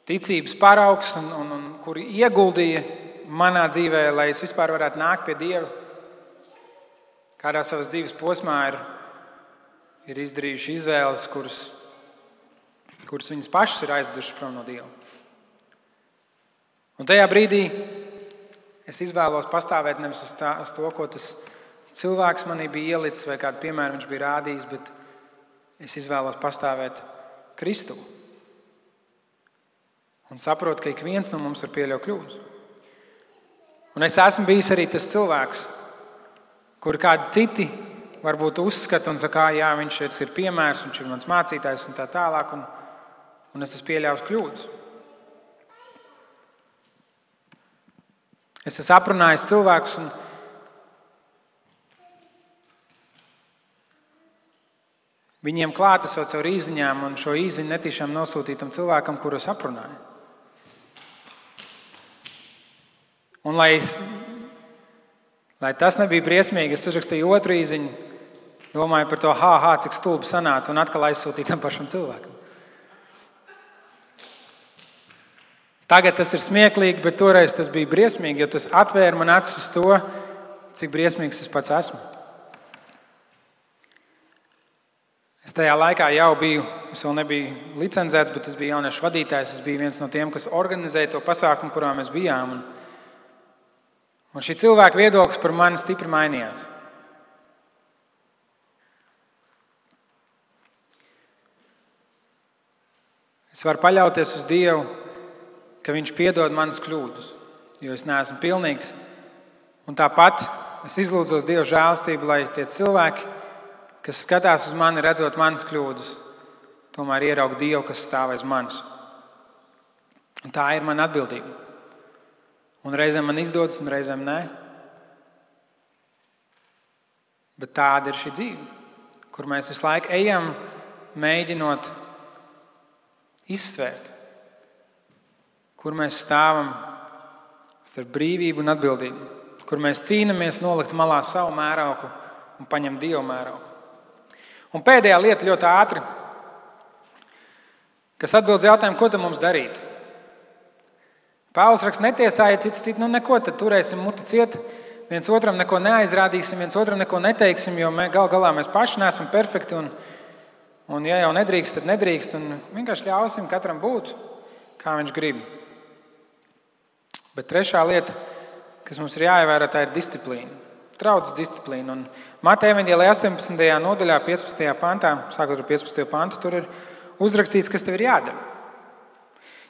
ticības paraugs un kuri ieguldīja manā dzīvē, lai es vispār varētu nākt pie Dieva, kādā savas dzīves posmā ir izdarījuši izvēles, kuras viņas pašas ir aizvedušas prom no Dieva. Un tajā brīdī es izvēlos pastāvēt nevis uz to, ko tas cilvēks manī bija ielicis vai kādu piemēru viņš bija rādījis, bet es izvēlos pastāvēt Kristu. Un saprotu, ka ik viens no mums var pieļaut kļūdas. Un es esmu bijis arī tas cilvēks, kur kādi citi varbūt uzskata un saka, jā, viņš ir piemērs, viņš ir mans mācītājs un tā tālāk, un es esmu pieļāvis kļūdas. Es esmu aprunājis cilvēkus un viņiem klātesot caur īziņām un šo īziņu netīšām nosūtītam cilvēkam, kuru es aprunāju. Un lai tas nebija briesmīgi, es uzrakstīju otru īziņu, domāju par to, cik stulbi sanāca, un atkal aizsūtīju tam pašam cilvēkam. Tagad tas ir smieklīgi, bet toreiz tas bija briesmīgi, jo tas atvēra man acis uz to, cik briesmīgs es pats esmu. Es tajā laikā jau biju, es vēl nebiju licencēts, bet es biju jauniešu vadītājs, es biju viens no tiem, kas organizēja to pasākumu, kurā mēs bijām. Un šī cilvēka viedoklis par mani stipri mainījās. Es varu paļauties uz Dievu, ka Viņš piedod manas kļūdas, jo es neesmu pilnīgs. Un tāpat es izlūdzos Dieva žēlastību, lai tie cilvēki, kas skatās uz mani, redzot manas kļūdas, tomēr ieraug Dievu, kas stāv aiz manis. Un tā ir mana atbildība. Un reizēm man izdodas, un reizēm nē. Bet tāda ir šī dzīve, kur mēs visu laiku ejam, mēģinot izsvērt, kur mēs stāvam starp brīvību un atbildību, kur mēs cīnāmies nolikt malā savu mērauklu un paņemt Dievu mērauklu. Un pēdējā lieta ļoti ātri, kas atbild jautājumu, ko tad mums darīt? Pāvils raksta, netiesājiet citu, neko, tad turēsim muti ciet, viens otram neko neaizrādīsim, viens otram neko neteiksim, jo gal galā mēs paši neesam perfekti, un ja jau nedrīkst, tad nedrīkst, un vienkārši ļausim katram būt, kā viņš grib. Bet trešā lieta, kas mums ir jāievēro, tā ir disciplīna. Draudzes disciplīna. Un Mateja evaņģēlijā 18. nodaļā, 15. pantā, sākot ar 15. pantu, tur ir uzrakstīts, kas tev ir jādara.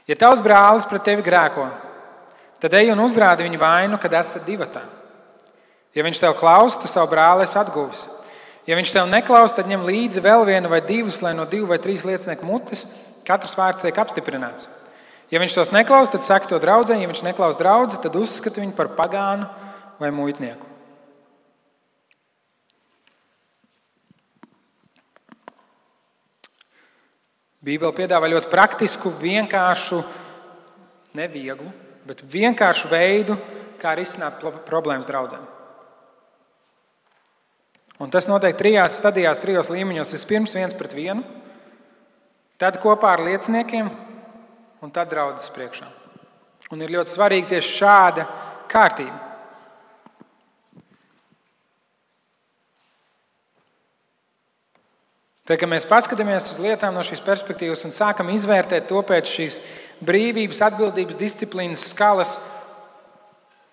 Ja tavs brālis pret tevi grēko, tad ej un uzrādi viņu vainu, kad esat divatā. Ja viņš tev klaus, tu savu brāli esi atguvis. Ja viņš tev neklaus, tad ņem līdzi vēl vienu vai divus, lai no 2 vai 3 liecinieku mutes katrs vārds tiek apstiprināts. Ja viņš tos neklaus, tad saka to draudzē, ja viņš neklaus draudzi, tad uzskata viņu par pagānu vai muitnieku. Bībele piedāvā ļoti praktisku, vienkāršu, nevieglu, bet vienkāršu veidu, kā risināt problēmas draudzēm. Un tas notiek 3 stadijās, 3 līmeņos. Vispirms 1 pret 1, tad kopā ar lieciniekiem un tad draudzes priekšā. Un ir ļoti svarīgi tieši šāda kārtība. Tad, kad mēs paskatāmies uz lietām no šīs perspektīvas un sākam izvērtēt to pēc šīs brīvības, atbildības, disciplīnas skalas,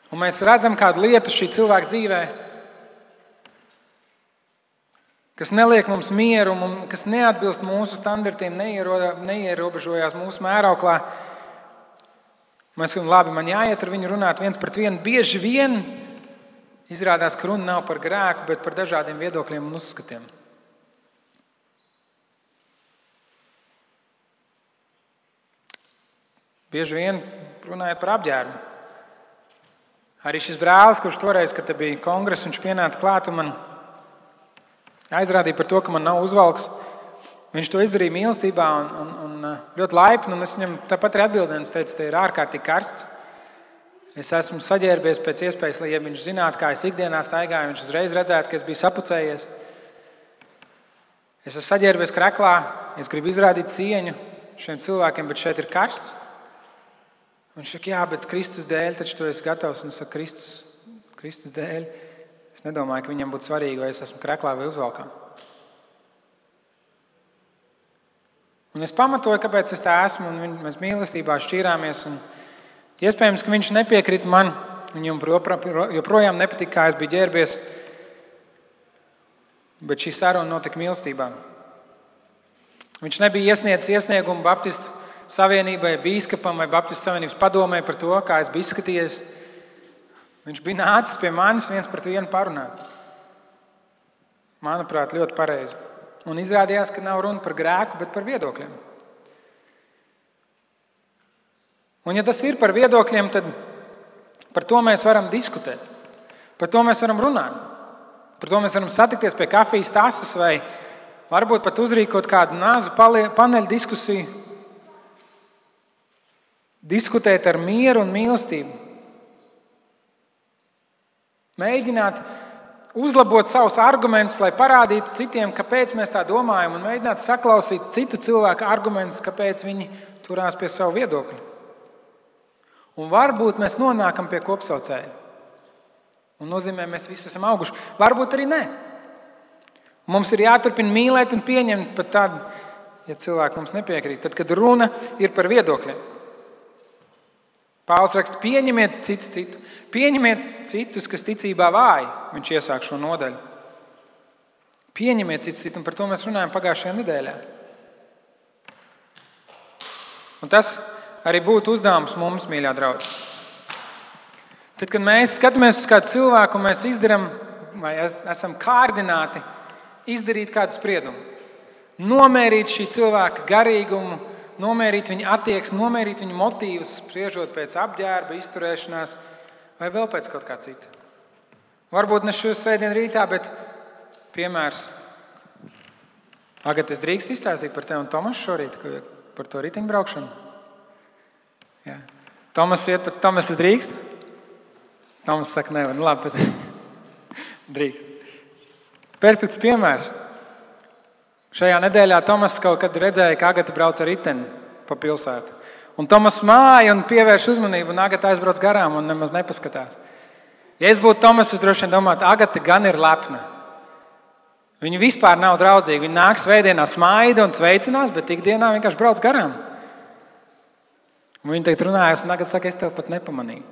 un mēs redzam kādu lietu šī cilvēka dzīvē, kas neliek mums mieru, kas neatbilst mūsu standartiem, neierobežojās mūsu mērauklā. Mēs sakām, labi, man jāiet ar viņu runāt 1 pret 1. Bieži vien izrādās, ka runa nav par grēku, bet par dažādiem viedokļiem un uzskatiem. Bieži vien runājot par apģērbu. Arī šis brālis, kurš toreiz, kad bija kongress, viņš pienāca klāt un man aizrādīja par to, ka man nav uzvalks. Viņš to izdarīja mīlestībā un ļoti laipni, un es viņam tāpat arī atbildēju, un es teicu, te ir ārkārtīgi karsts. Es esmu saģērbies pēc iespējas, lai ja viņš zinātu, kā es ikdienā staigāju, viņš uzreiz redzētu, ka es biju sapucējies. Es esmu saģērbies kreklā, es gribu izrādīt cieņu šiem cilvēkiem, bet šeit ir karsts. Viņš saka, jā, bet Kristus dēļ taču tu esi gatavs. Un es saku, Kristus dēļ. Es nedomāju, ka viņam būtu svarīgi, vai es esmu kreklā vai uzvalkā. Un es pamatoju, kāpēc es tā esmu, un mēs mīlestībā šķīrāmies. Un iespējams, ka viņš nepiekrita man, viņam joprojām nepatika, kā es biju ģērbies. Bet šī saruna notika mīlestībā. Viņš nebija iesniedzis iesniegumu Baptistu savienībai, bīskapam vai Baptistu savienības padomē par to, kā es biju izskatījies. Viņš bija nācis pie manis 1-1 parunāt. Manuprāt, ļoti pareizi. Un izrādījās, ka nav runa par grēku, bet par viedokļiem. Un ja tas ir par viedokļiem, tad par to mēs varam diskutēt. Par to mēs varam runāt. Par to mēs varam satikties pie kafijas tases vai varbūt pat uzrīkot kādu nāzu paneļu diskusiju. Diskutēt ar mieru un mīlestību. Mēģināt uzlabot savus argumentus, lai parādītu citiem, kāpēc mēs tā domājam, un mēģināt saklausīt citu cilvēku argumentus, kāpēc viņi turās pie savu viedokļu. Un varbūt mēs nonākam pie kopsaucēja. Un nozīmē, mēs visi esam auguši. Varbūt arī nē. Mums ir jāturpina mīlēt un pieņemt pat tad, ja cilvēki mums nepiekrīt. Tad, kad runa ir par viedokļiem. Pāvils raksta, pieņemiet citu. Pieņemiet citus, kas ticībā vāji. Viņš iesāk šo nodaļu. Pieņemiet citu, un par to mēs runājam pagājušajā nedēļā. Un tas arī būtu uzdevums mums, mīļā draugi. Tad, kad mēs skatāmies uz kādu cilvēku, mēs izdarām, vai esam kārdināti izdarīt kādu spriedumu, nomērīt šī cilvēka garīgumu, nomērīt viņa attieksmi, nomērīt viņa motīvus, spriežot pēc apģērba, izturēšanās vai vēl pēc kaut kā cita. Varbūt ne šo svētdienu rītā, bet piemērs. Agat, es drīkst izstāstīt par tevi un Tomasu šorīt, par to riteņbraukšanu? Jā. Tomas, es drīkst? Tomas saka, nevar. Labi, drīkst. Perfekts piemērs. Šajā nedēļā Tomas kaut kad redzēja, ka Agata brauc ar riteni pa pilsētu. Un Tomas māja un pievērš uzmanību, un Agata aizbrauc garām un nemaz nepaskatās. Ja es būtu Tomas, es droši vien domātu, Agata gan ir lepna. Viņa vispār nav draudzīga. Viņa nāk svētdienā smaida un sveicinās, bet ikdienā vienkārši brauc garām. Un viņa tagad runājas, un Agata saka, es tev pat nepamanīju.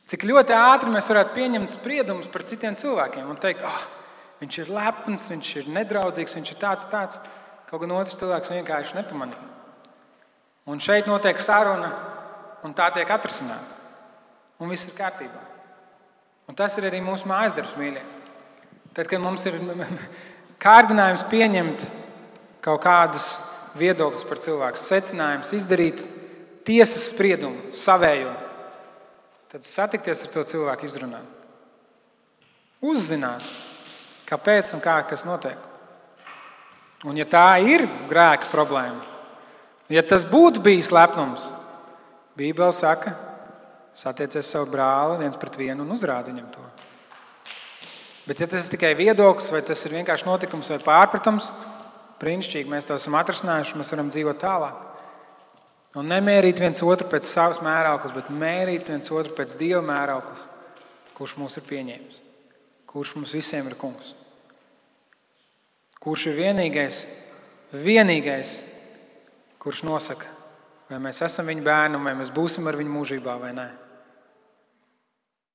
Cik ļoti ātri mēs varētu pieņemt spriedumus par citiem cilvēkiem un teikt, viņš ir lepns, viņš ir nedraudzīgs, viņš ir tāds. Kaut gan otrs cilvēks vienkārši nepamanīja. Un šeit notiek saruna, un tā tiek atrisināta. Un viss ir kārtībā. Un tas ir arī mūsu mājasdarbs, mīļie. Tad, kad mums ir kārdinājums pieņemt kaut kādus viedokļus par cilvēku, secinājums izdarīt tiesas spriedumu, savējo, tad satikties ar to cilvēku izrunāt. Uzzināt, kāpēc un kā kas notiek. Un ja tā ir grēka problēma, ja tas būtu bijis lepnums, Bībele saka, satiecies savu brāli 1-1 un uzrādi viņam to. Bet ja tas ir tikai viedoklis, vai tas ir vienkārši notikums vai pārpratums, brīnišķīgi, mēs to esam atrisinājuši, mēs varam dzīvot tālāk. Un nemērīt viens otru pēc savas mērauklas, bet mērīt viens otru pēc Dieva mērauklas, kurš mūs ir pieņēmis, kurš mums visiem ir kungs. Kurš ir vienīgais, kurš nosaka, vai mēs esam viņa bērni, vai mēs būsim ar viņu mūžībā vai nē.